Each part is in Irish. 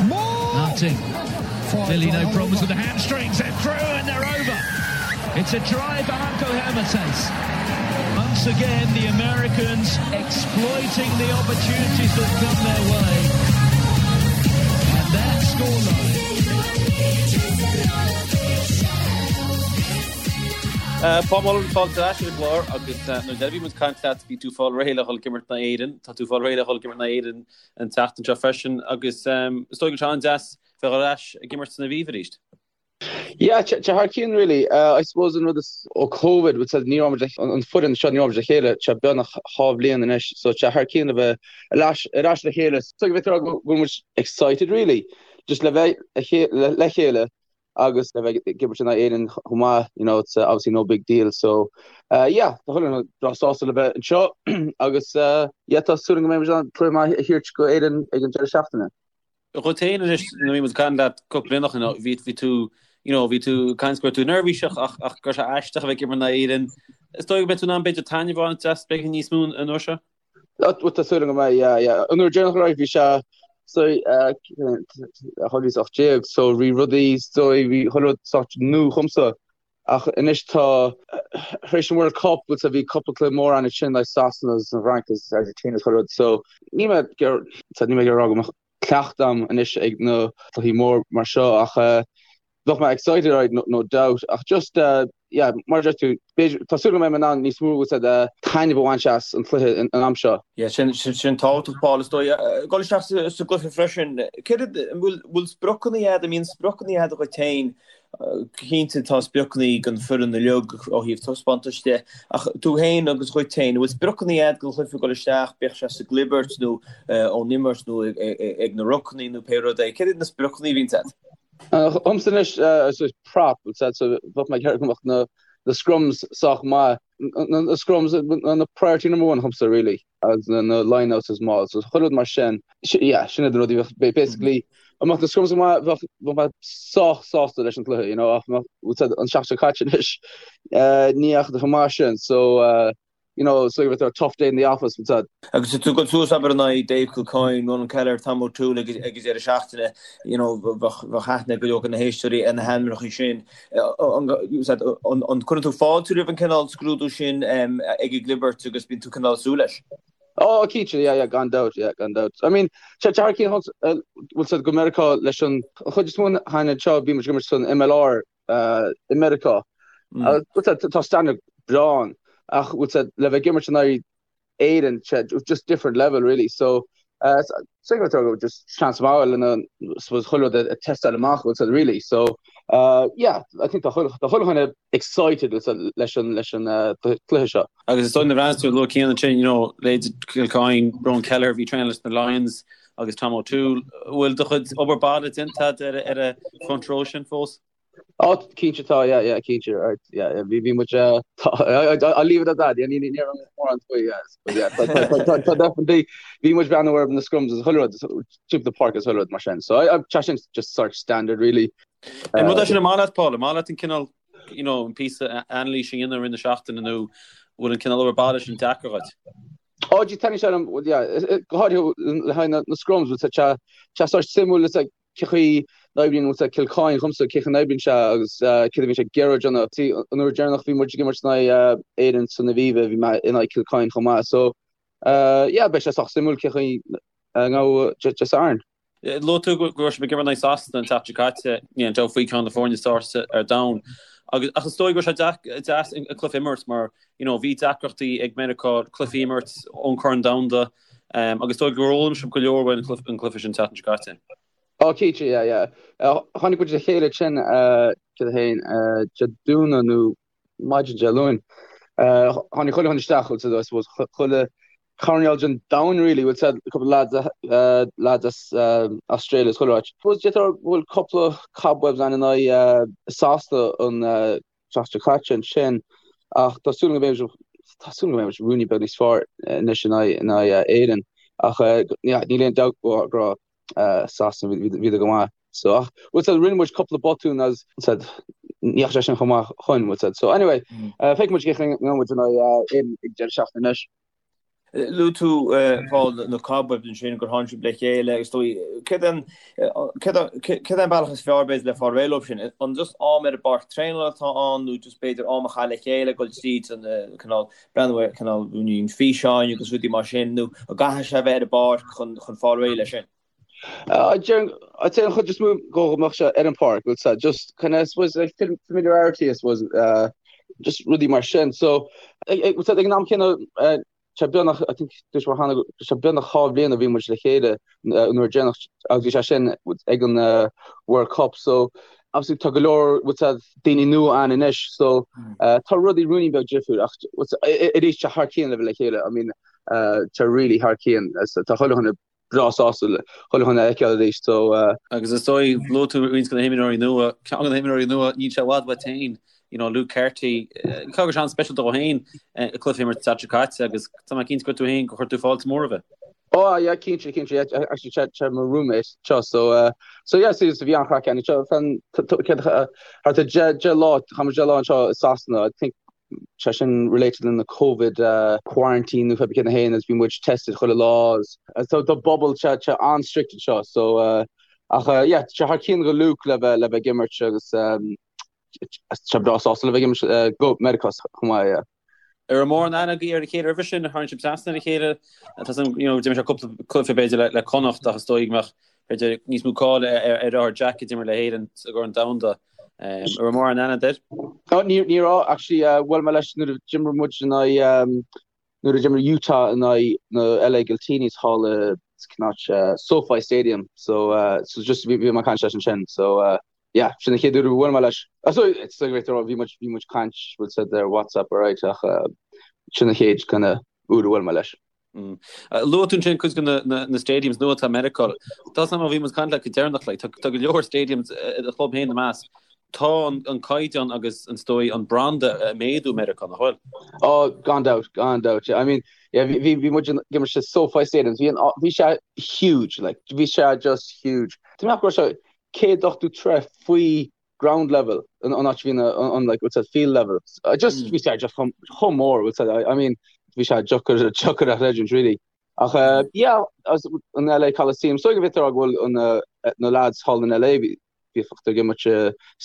Martin. Clearly no problems with the hamstrings. They're through and they're over. It's a try for Hanco Hermates. Once again, the Americans exploiting the opportunities that come their way. And that scoreline. Paul Mullen, fáilte ar ais ar an gclár agus nuair a bhí muid ag caint leat bhí tú fáil réidh le dhul ag imirt in aghaidh Éirinn, tá tú fáil réidh le dhul ag imirt in aghaidh Éirinn an tseachtain seo freisin agus is dóigh go bhfuil sé an-deas bheith ar ais ag imirt san Aviva arís. Yeah, tá thar cionn really. I suppose an rud is ó Covid, bhfuil a fhios agat, ní raibh muid an foireann seo ní raibh muid le chéile, tá beagnach dhá bhliain anois, so tá thar cionn a bheith ar ais ar ais le chéile. So go bhféadfá a rá go bhfuil muid excited really, just le bheith le chéile agus le bheith ag imirt in aghaidh Éirinn chomh maith, you know, it's obviously no big deal. So yeah, tá chuile dhuine breá sásta le bheith anseo agus yeah, tá súil agam go mbeidh muid in ann cluiche maith a thabhairt go Éirinn ag an deireadh seachtaine. Dhuit féin anois, nuair a bhí muid ag caint leat cúpla bliain ó shin, bhí, bhí tú, you know, bhí tú ag caint go raibh tú neirbhíseach ach, ach go raibh sé aisteach a bheith ag imirt in aghaidh Éirinn. Is dóigh go mbeidh tú in ann b'fhéidir taitneamh a bhaint as beagán níos mó an uair seo? Bhuel, tá súil agam go mbeidh, yeah, yeah. An uair deireanach right, bhí sé, so, 2018, so bhí rudaí, so bhí chuile rud sort nua dhomsa. Ach anois tá, tar éis an World Cup, bhfuil a fhios agat, bhí cúpla cluiche mór ann ansin, like Sasana agus an Fhrainc agus Argentina agus chuile rud, so níl mé ag níl mé ag rá go mbeadh cleachtadh agam anois ag na cluichí mór mar seo ach bheadh mé excited right, no, no doubt ach just yeah, mar a deir tú, b'fhéidir, tá súil go mbeidh mé in ann níos mó bhfuil a fhios agat, taitneamh a bhaint as an chluiche an am seo. Yeah, sin, sin, sin tábhachtach, Paul, is dóigh. Dul isteach sa, sa gcluiche freisin, céard, an bhfuil, bhfuil spriocanna agat, an mbíonn spriocanna agat dhuit féin Cinnte tá spriocanna ag an foireann uilig ó thaobh taispeántais de, ach tú féin agus dhuit féin, an bhfuil spriocanna agat don chluiche ag dul isteach, bíodh sé sa gclibirt nó ón imirt nó ag na rucanna nó pé rud é, céard iad na spriocanna a bhíonns agat? Dhomsa anois, is prop, so bheadh mé ag iarraidh go mbeadh na scrums sách maith, na scrums, na priority number one dhomsa really. agus na lineouts is mauls so chuile rud mar sin yeah sin iad na rudaí bheadh basically dá mbeadh na scrums go maith bheadh bheadh mé sách sásta leis an cluiche you know ach bhfuil a fhios agat an seachtain seo caite anois ní dheachaigh chomh maith sin so you know so bheadh a tough day in the office bhfuil a fhios agat. Agus tú ag dul suas abair in aghaidh Dave Kilcoyne, Ronan Kelleher, Tom O'Toole ag an deireadh seachtaine you know bheadh bheadh aithne ag go leor de na héisteoirí ar na hainmneacha sin. An gcuireann tú fáilte roimh an cineál scrúdú sin ag an gclibirt agus bíonn tú cineál ag súil leis? Ó, cinnte, yeah, yeah, gan dabht, yeah, gan dabht. I mean, sé thar cionn bhfuil a fhios agat go Meiriceá leis an chuid is mó den fhoireann seo, bhí muid ag imirt san MLR i Meiriceá. Bhfuil a fhios agat, tá standard breá ann, ach bhfuil a fhios agat, le bheith ag imirt in aghaidh Éirinn, just different level really. So so just chance maith lena suppose chuile rud a test-áil amach bhfuil a fhios agat really. So yeah, I think tá chuile dhuine excited leis an leis an cluiche seo. Agus is dóigh nuair a bhreathnaíos tú luaigh Cian ansin, you know, leithéidí Kilcoyne, Ronan Kelleher, bhí traenáil leis na Lions agus Tom O'Toole. Bhfuil do chuid obair baile déanta agat ar an front row sin fós? Ó, cinnte tá, yeah, yeah, cinnte, right, yeah, yeah, bhí, bhí muid, eh, tá, I, I, I'll leave it at that, yeah, ní, ní, ní raibh mórán faoi, yeah, but yeah, tá, tá, tá, tá, tá definitely, bhí muid breathnú ar na scrums is chuile rud, timpeall na páirce is chuile rud mar sin, so I, I, tá sin just sort standard really. An rud é sin an maith leat, Paul, an maith leat an cineál, you know, an píosa anailíse a dhéanamh i rith na seachtaine nó bhfuil an cineál obair baile sin deacair dhuit? Ó, gee, taitníonn sé liom, well, yeah, go háirithe le haghaidh na, na scrums, bhfuil a fhios agat, tá, tá sort suimiúil, it's like, cé chaoi n-oibríonn bhfuil a fhios agat Kilcoyne dhomsa, cé chaoi n-oibríonn sé agus céard a bhíonn sé ag iarraidh a dhéanamh. See, an uair deireanach bhí muid ag imirt in aghaidh Éirinn san Aviva, bhí mé in aghaidh Kilcoyne chomh maith. So, yeah, beidh sé sách suimiúil cé chaoi a ngabhfaidh Dé Sathairn. Luaigh tú go raibh sibh ag imirt in aghaidh Sasana an tseachtain seo caite, níl aon dabht faoi ceann de na foirne is fearr ar domhan. Agus ach is dóigh go raibh sé deas an cluiche a imirt mar, you know, bhí deacrachtaí ag Meiriceá cluichí a imirt ón Corn Domhanda. Agus is dóigh gur fhoghlaim sibh go leor uaidh an cluiche sin an tseachtain seo caite. Ó, cinnte, yeah, yeah. Tháinig muid le chéile ansin, céard é féin, Dé Domhnaigh nó maidin Dé Luain. Tháinig chuile dhuine isteach, bhfuil a fhios agat, I suppose, chuile choirnéal den domhan really, bhfuil a fhios agat, cúpla lads, lads as Australia is chuile áit. Suppose d'fhéadfá a rá go bhfuil cúpla cobwebs ann in aghaidh Sasana an tseachtain seo caite ansin ach tá súil agam go mbeidh tá súil agam go mbeidh muid ruainnín beag níos fearr anois in aghaidh in aghaidh Éirinn ach níl aon dabht go raibh Sasana bhíodar go maith so ach bhfuil a fhios agat rinne muid cúpla botún agus bhfuil a fhios agat ní dheachaigh sé sin chomh maith chugainn bhfuil a fhios agat so anyway feicfidh muid cén chaoi a ngabhfaidh muid in aghaidh Éirinn ag deireadh seachtaine anois. Luaigh tú, Paul, na cobwebs ansin, gur tháinig sibh le chéile agus dóigh, céard é an, céard é an bealach is fearr b'fhéidir le fáil réidh leo sin? An just am ar an bpáirc traenála atá ann nó just b'fhéidir am a chaitheamh le chéile, dul tríd an cineál, breathnú ar cineál físeáin agus rudaí mar sin nó an gcaithfidh sé a bheith ar an bpáirc chun chun fáil réidh leis sin? I'd say an chuid is mó go mbeadh sé ar an pháirc, bhfuil sé just kind of I suppose like familiarity I suppose uh, just rudaí mar sin. So ag ag an am céanna uh, sé beagnach I think dúirt mé cheana sé beagnach 2 bhliain a bhí muid le chéile uh, nuair deireanach agus bhí sé sin ag an uh, World Cup so obviously tá go leor bhfuil sé daoine nua ann anois so uh, tá rudaí ruainnín beag difriúil ach arís sé thar cionn le bheith le chéile I mean uh, tá really thar cionn tá chuile dhuine breá sásta chuile dhuine a fheiceáil arís so. Agus is dóigh, luaigh tú roinnt de na himreoirí nua, ceann de na himreoirí nua, níl sé i bhfad uait féin, you know, Luke Carty, caithfidh go raibh sé an-speisialta dó féin an cluiche a imirt an tseachtain seo caite agus tá mé cinnte gur tú féin gur chuir tú fáilte mór roimhe. Oh yeah, cinnte, cinnte, yeah, actually sé sé mo roommate seo, so uh, so yeah, so so bhí an-chraic ann seo fan thart ar 10 lá, chaith muid 10 lá anseo i Sasana, I think sé sin related lena Covid quarantine nó pé cén a théann agus bhí muid tested chuile lá agus so tá bubble sé sé an-strict anseo so ach yeah sé thar cionn go Luke le bheith le bheith ag imirt agus sé breá sásta le bheith ag imirt go Meiriceá chomh maith yeah. An raibh mórán aithne agaibh ar a chéile roimhe sin, tharraing sibh trasna ar a chéile, tá san you know d'imir sé cúpla cluiche b'fhéidir le le Connacht ach is dóigh go mbeadh b'fhéidir níos mó cáil ar ar a dheartháir Jack a d'imir le hÉirinn sa gCorn Domhanda. An raibh mórán aithne agat air? Oh, ní ní raibh actually uh, bhuail mé leis nuair a d'imir muid in aghaidh um, nuair a d'imir Utah in aghaidh na LA Giltinis thall i cén áit uh, SoFi Stadium so uh, so just bhí bhí mé ag caint leis ansin so uh, yeah sin an chéad uair a bhuail mé leis. Uh, so it's like bhí muid bhí muid caint bhfuil a fhios agat ar WhatsApp alright ach uh, sin an chéad kind of uair a bhuail mé leis. Luaigh tú ansin cuid de na stadiums nua atá i Meiriceá. Tá a fhios agam ó bhí muid ag caint leat go deireanach, like, tá go leor stadiums i do chlub féin ina measc. Tá an caighdeán agus is dóigh an branda ag méadú i Meiriceá, nach bhfuil? Oh, gan dabht, gan dabht. I mean, yeah, bhí bhí muid ag imirt sa SoFi Stadium. Bhí an bhí sé huge, like, bhí sé just huge. Tá mé ach go raibh sé 180 troigh faoi ground level an áit a bhí an like what's that field level uh, just bhí sé just chomh chomh mór what's that I, I mean bhí sé deacair deacair a chreidiúint really ach uh, yeah as an LA Coliseum so go bhfios go bhfuil an uh, na lads thall in LA bhí bhí ag imirt i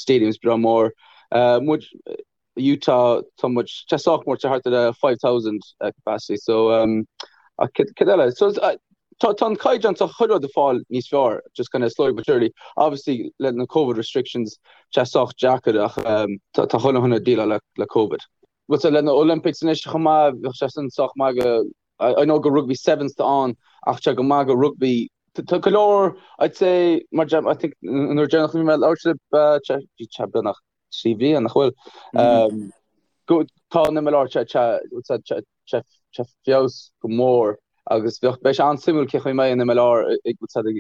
stadiums breá mór uh, muid Utah tá muid tá sách mór tá thart ar 5,000 capacity so um, ach cad cad eile so uh, tá tá an caighdeán tá chuile rud ag fáil níos fearr just kind of slowly but surely obviously le na COVID restrictions tá sách deacair ach um, tá tá chuile dhuine ag déileáil le le COVID. Bhuel so le na Olympics anois chomh maith bheadh sé sin sách maith go I know go rugby sevens tá ann ach tá go maith go rugby tá go leor I'd say mar I think nuair deireanach a bhí mé ag labhairt libh uh, bhí sé beagnach 3 bhliain, nach bhfuil? Tá an MLR ag feabhas go mór agus bheadh beidh sé an-suimiúil cé chaoi a mbeidh an MLR ag thart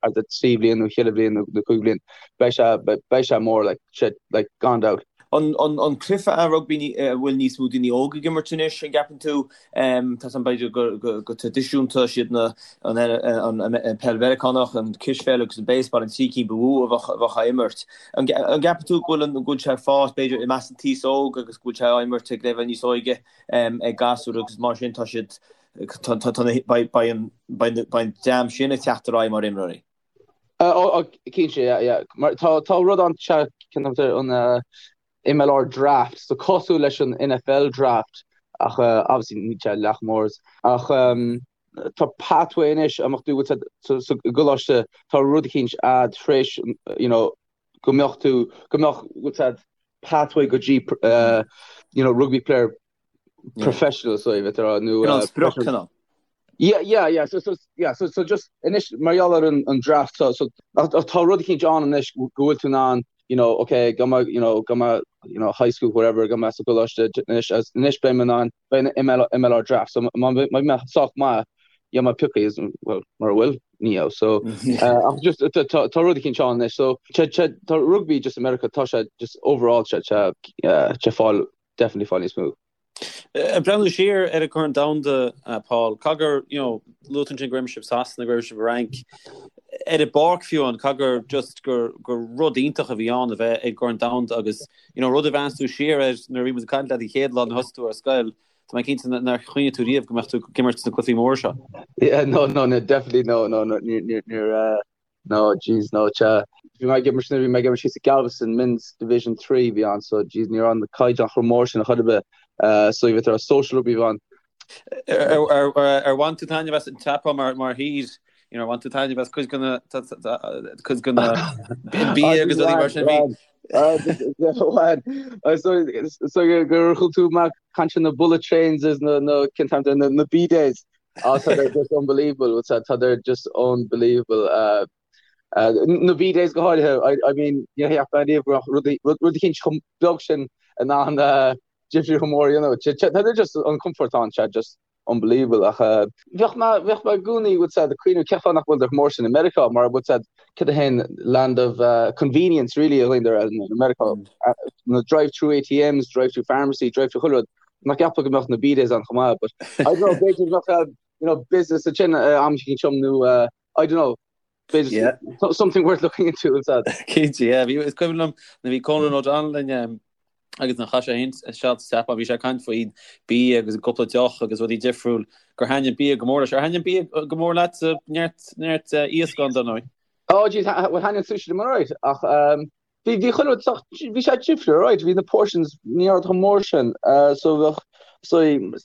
ar 3 bhliain nó 4 bhliain nó 5 bhliain. Beidh sé beidh sé mór like sé like gan dabht. An cluiche é rugbaí a bhfuil níos mó daoine óga ag imirt anois, an gceapann tú? Tá a fhios agam b'fhéidir go traidisiúnta siad na an peil Mheiriceánach, an cispheil agus an baseball an trí cinn ba mhó a bheadh á imirt. An gceapann tú go bhfuil go bhfuil sé ag fás b'fhéidir i measc an t-aos óg agus go bhfuil sé á imirt ag leibhéal níos óige ag gasúir agus mar sin tá siad beidh an dream sin ag teacht ar aghaidh mar imreoirí? Cinnte, yeah, yeah. Mar tá tá rud ann an MLR draft, so cosúil leis an NFL draft ach obviously níl sé leath chomh mór ach tá pathway anois a mbeadh tú sa gcoláiste tá rud eicínt a'd tar éis you know go mbeadh tú go mbeadh what's that pathway go dtí you know rugby player professional so bheith rá nó Cineál sprioc cineál. Yeah, yeah, yeah. So, so, yeah, so, so just anois mar gheall ar an, an draft so, so tá rud eicínt ann anois go bhfuil tú in ann you know, okay, go mbeidh, you know, go mbeidh, you know, high school, whatever, go mbeidh sa gcoláiste anois, anois beidh mé in ann, beidh an ML, MLR draft, so má bheidh mé sách maith, yeah, má piocadh, well, mura bhfuil, ní hea, so, uh, ach just, tá, tá, tá rud eicínt ann anois, so, tá, tá, tá rugby just America, tá sé just overall, tá, tá, uh, tá fáil, definitely fáil níos mó. Ag breathnú siar ar an gCorn Domhanda, Paul, caithfidh gur, you know, luaigh tú ansin go raibh sibh Sasana, go raibh sibh i bhFrainc, ar an bpáirc fiú amháin, caithfidh gur just gur, gur rud iontach a bhí ann a bheith ag an gCorn Domhanda agus, you know, rud a bhreathnaíos tú siar air nuair a bhí muid ag caint leat an chéad lá nuair a thosaigh tú ar scoil. Tá mé cinnte nár chuimhnigh tú riamh go mbeadh tú ag imirt sna cluichí móra seo. Yeah, no, no, no, definitely no, no, no, níor, níor, níor, eh, no, jeez, no, sea. Bhí mé ag imirt, bhí mé ag imirt thíos i Galveston, Men's Division 3 bhí ann, so jeez, ní raibh an caighdeán chomh mór sin a chor ar bith, eh, so bhí ar social rugby bhí ann. Ar, ar, ar, ar bhain tú taitneamh as an tSeapáin mar, mar thír, you know, ar bhain tú taitneamh as cuid de na, cuid de na bia agus rudaí mar sin, bhí, So gur chuala tú mé ag caint na bullet trains is na na cén t-ainm na na bidets. Ah tá they're just unbelievable tá tá they're just unbelievable. Uh, uh, na bidets go háirithe I, I mean ní cheap mé riamh go raibh rudaí rud eicínt chomh beag sin in ann uh, difríocht chomh mór you know. Tá they're just an comfort ann sé just unbelievable ach bheadh mé bheadh mé i gcónaí bhfuil a fhios agat ag cuimhneamh cén fáth nach bhfuil chomh mór sin i Meiriceá mar bhfuil a fhios agat cad é an land of convenience really a dhaoine in Meiriceá na drive through ATMs drive through pharmacy drive through chuile rud nach gceapfá go mbeadh na bidets ann chomh maith but I don't know b'fhéidir go mbeadh you know business ansin am eicínt nó I don't know Yeah. Something worth looking into is that. Cinnte, yeah. Bhí is cuimhin liom nuair a bhí Conan O'Donnell linn um, agus nuair a chaith sé féin seal sa tSeapáin, bhí sé ag caint faoin bia agus an cúpla deoch agus rudaí difriúil gur thaitnigh bia go mór leis. Ar thaitnigh bia go mór leat sa neart neart uh, iasc ann dar ndóigh? Oh geez, well thaitnigh an sushi liom alright ach um, Bhí, bhí chuile rud sách, bhí sé difriúil, alright, bhí na portions ní raibh chomh mór sin, so bheadh, so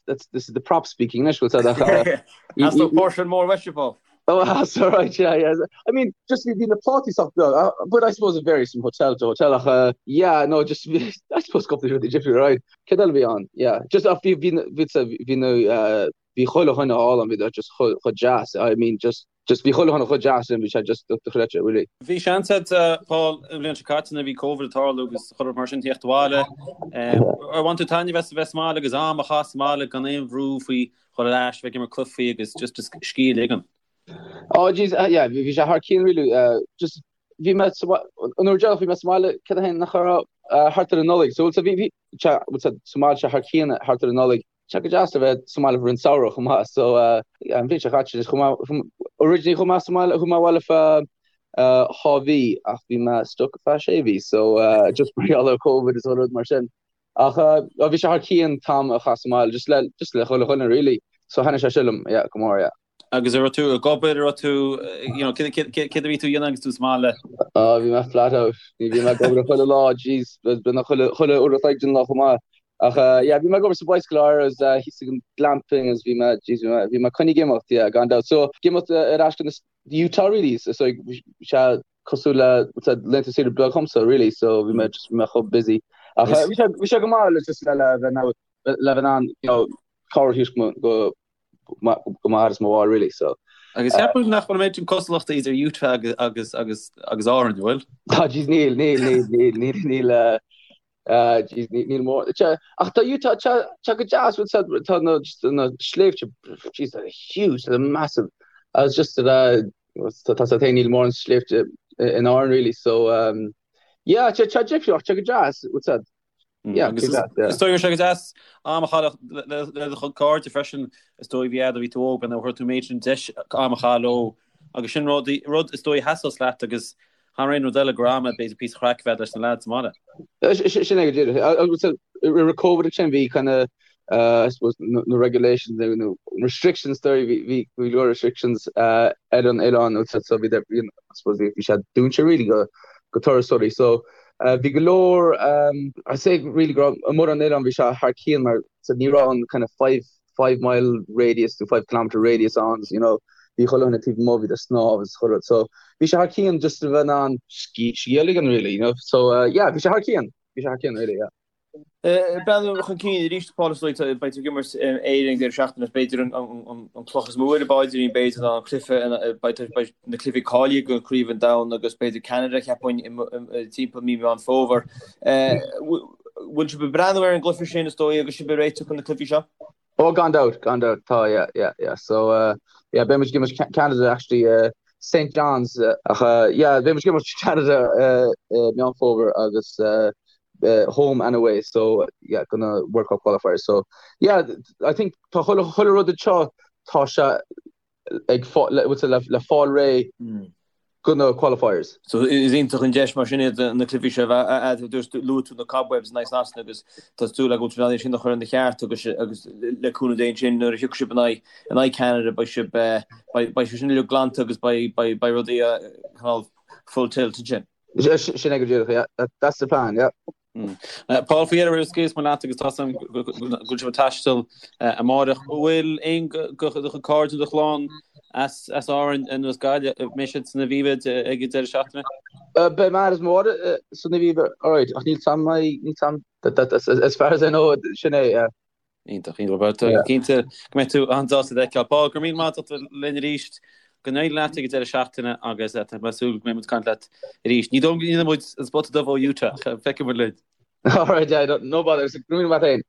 that's, this is the prop speaking anois, bhfuil a fhios agat ach, Theastódh portion mór uaitse, Paul. Oh, that's alright, yeah, yeah. I mean, just bhí na plátaí sách beag, uh, but I suppose it varies from hotel to hotel ach, uh, yeah, no, just, I suppose cúpla rudaí difriúil, right. Céard eile a bhí ann? Yeah, just ach bhí, bhí, bhí, bhí na, uh, bhí chuile dhuine álainn, bhí just chomh deas, I mean, just, Just bhí chuile dhuine chomh deas sin, bhí sé just dochreidte, really. Bhí seans agat, Paul, an bhliain seo caite nuair a bhí Covid ag tarlú agus chuile rud mar sin theacht abhaile. Ar bhain tú taitneamh as a bheith sa mbaile agus am a chaitheamh sa mbaile gan aon bhrú faoi dhul ar ais, bheith ag imirt cluichí agus just just scíth a ligean? Oh jeez, yeah, bhí sé thar cionn really. Just bhí mé sa an uair deireanach bhí mé sa mbaile cad é nach raibh thart ar an Nollaig. So bhí bhí sa mbaile sé thar cionn thart ar an Nollaig. Tá sé go deas a bheith sa mbaile roimh an samhradh chomh maith so an bhliain seo caite just chuaigh mé originally chuaigh mé sa mbaile chuaigh mé abhaile feadh dhá mhí ach bhí mé stuck feadh sé mhí so just mar gheall ar Covid is rud mar sin ach bhí sé thar cionn t-am a chaitheamh sa mbaile just le just le chuile dhuine really so thaitnigh sé sin liom yeah go mór yeah. Agus an raibh tú ag obair, an raibh tú, you know, céard a bhí tú a dhéanamh agus tú sa mbaile? Ah, bhí mé flat out. Bhí mé ag obair chuile lá, jeez, b'in chuile chuile uair a chloig den lá chomh maith. Ach yeah, bhí mé ag obair sa Bicycle Hire agus thíos ag an glamping agus bhí mé, jeez, bhí mé, bhí mé coinnithe ag imeacht, yeah, gan dabht. So, ag imeacht ar ais go Utah really, so bhí sé cosúil le laethanta saoire beag dhomsa really, so bhí mé just, bhí mé chomh busy. Ach bhí sé, bhí sé go maith le just le le bheith le bheith in ann, you know, cabhair a thabhairt go go m'athair is mo mháthair really so. Agus ceapaim nach bhfuil an méid sin cosúlachta idir Utah agus agus agus agus Árainn, an bhfuil? Tá jeez níl níl níl níl níl níl eh eh jeez níl níl mór Tá ach tá Utah tá tá go deas bhfuil a fhios agat tá na just na sléibhte jeez they're huge they're massive agus just uh tá tá tá níl mórán sléibhte in Árainn really so um yeah tá tá difriúil ach tá go deas bhfuil a fhios agat Yeah, Agus is dóigh go raibh sé go deas am a chaitheamh le do chuid cairde freisin is dóigh bhí fhad ó bhí tú óg nár fuair tú an méid sin deis am a chaitheamh leo agus sin rud rud is dóigh a sheasós leat agus thar aon rud eile gur am b'fhéidir píosa craic a bheith leis na lads sa mbaile. Sin é go díreach. Agus roimh Covid ansin bhí kind of I suppose na regulations nó restrictions dóigh bhí bhí go leor restrictions ar an oileán so bhí I suppose bhí sé dúnta really go go turasóirí so Bhí go leor, I'd say really go raibh amuigh ar an oileán bhí sé thar cionn mar so ní raibh an kind of five mile radius nó five kilometre radius ann you know bhí chuile dhuine taobh amuigh bhí ag snámh agus chuile rud so bhí sé thar cionn just a bheith in ann scíth a ligean really you know so yeah bhí sé thar cionn bhí sé thar cionn really yeah. Breathnú chun cinn arís, Paul, is dóigh, beidh tú ag imirt Éirinn ag deireadh seachtaine, b'fhéidir an cloch is mó ar an bpaidrín, b'fhéidir ná an cluiche, beidh na cluichí cáilithe do Chraobh an Domhain agus b'fhéidir Ceanada, cheapfainn, timpeall mí Meán Fómhair. Bhfuil sibh ag breathnú ar an gcluiche sin, is dóigh, agus sibh ag réiteach chun na cluichí seo? Oh, gan dabht, gan dabht, tá, yeah, yeah, yeah. So, uh, yeah, beidh muid ag imirt Canada actually, uh, St John's, ach, uh, yeah, beidh muid ag imirt Canada uh, uh, Meán Fómhair agus uh, home and away so yeah do na World Cup qualifiers so yeah I think tá chuile chuile rud anseo tá sé ag le le fáil réidh mm. Do na qualifiers. So is iontach an deis mar sin iad na cluichí seo a bheith agat. Luaigh tú na cobwebs in aghaidh Sasana agus tá súil agam go bhfuil sibh in ann iad sin a chur ina cheart agus agus le cúnamh Dé ansin nuair a thiocfaidh sibh in aghaidh in aghaidh Canada beidh sibh beidh beidh sé sin uilig glanta agus beidh beidh beidh rudaí cineál full tilt ansin. Sin é go díreach, yeah. That's the plan, yeah. Paul, faoi dheireadh roimh a scaoilfeas mé leat agus tá 's agam go bhfuil sibh ag taisteal amáireach. An bhfuil aon de do chuid cairde nó do chlann as Árainn nó as Gaillimh, an mbeidh siad san Aviva ag an deireadh seachtaine? Beidh m'athair is mo mháthair san Aviva, alright, ach níl 's agam, níl 's agam, as far as I know, sin é, yeah. Iontach, iontach. Bhuel, tá cinnte go mbeidh tú an-sásta iad a fheiceáil. Paul, go raibh míle maith agat as ucht a bheith linn arís. Go n-éirí leat ag an deireadh seachtaine agus tá mé ag súil go mbeidh muid ag caint leat arís. Ní dóigh liom go ndéanfaidh muid an spota dubh ó Utah, ach feicfidh muid linn. Alright, yeah, no bother. Go raibh míle maith agat féin.